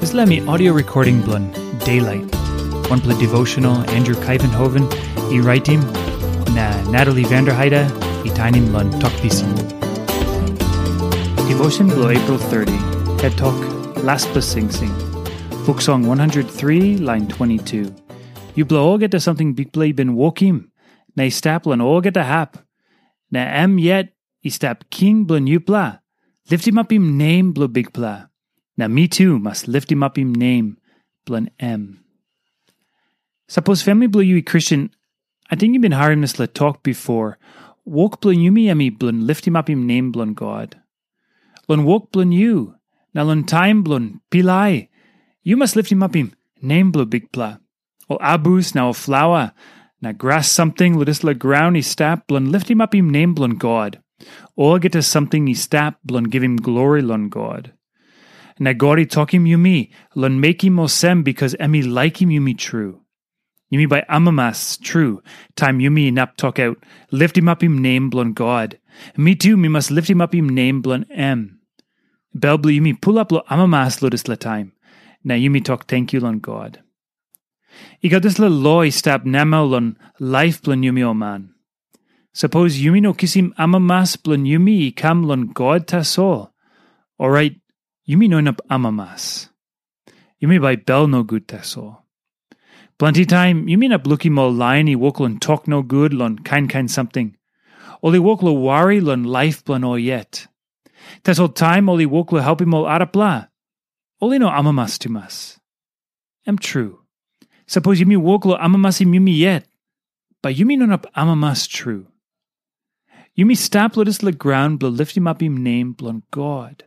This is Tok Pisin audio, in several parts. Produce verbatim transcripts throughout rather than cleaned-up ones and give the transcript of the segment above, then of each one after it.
Dispela mi audio recording bilong Daylight, wanpela devotional Andrew Kaivenhoven i raitim, na Natalie Vanderheide i tainim long Tok Pisin. Devotion bilong April thirty, het tok, Laspela Singsing. Buk Song one hundred three, lain twenty-two. Yupela olgeta samting Bikpela i bin wokim, na i stap long olgeta hap, na em yet i stap king bilong yupela, liftimapim nem bilong Bikpela. Na mi tu mas liftimapim nem bilong em. Sapos famili bilong yu i Kristen, ating yu bin harim dispela tok bipo, wok bilong yumi em i bilong liftimapim nem bilong God. Long wok bilong yu, na long taim bilong pilai, yu mas liftimapim nem bilong Bikpela. Ol abus na ol flaua, na gras samting long dispela graun i stap bilong liftimapim nem bilong God. Olgeta samting i stap bilong givim glori long God. Na God i tokim yumi long mekim olsem, bikas em i laikim yumi tru. Yumi bai amamas tru, taim yumi inap tokaut, liftimapim nem bilong God. Mi tu mi mas liftimapim nem bilong em. Bel bilong yumi pulap long amamas long dispela taim, na yumi tok tenkyu long God. I gat dispela lo i stap namel long laip bilong yumi ol man. Sapos yumi no kisim amamas bilong yumi i kam long God tasol, orait yumi no inap amamas. Yumi bai bel nogut tasol. Planti taim yumi inap lukim ol lain i wok long tok nogut long kain kain samting. Ol i wok long wari long laip bilong ol yet. Tasol taim ol i wok long helpim ol arapela, ol i no amamas tumas. Em tru, sapos yumi wok long amamasim yumi yet, bai yumi no inap amamas tru. Yumi stap long dispela graun bilong liftimapim nem bilong God.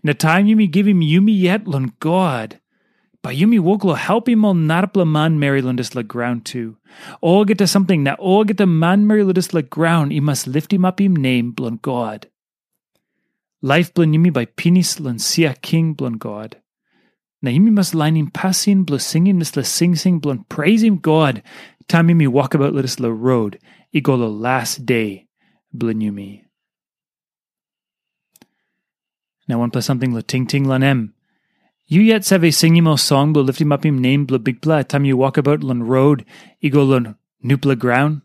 Na taim yumi givim yumi yet long God, bai yumi wok long helpim ol narapela manmeri long dispela graun tu. Olgeta samting na olgeta manmeri long dispela graun i mas liftimapim nem bilong God. Laip bilong yumi bai pinis long sia king bilong God. Na yumi mas lainim pasin bilong singim dispela singsing bilong preisim God, taim yumi wokabaut long dispela rot i go long las de bilong yumi. Na wanpela samting long tingting long em. Yu yet save singim ol song bilong liftimapim nem bilong Bikpela taim yu wokabaut long rot i go long nupela graun?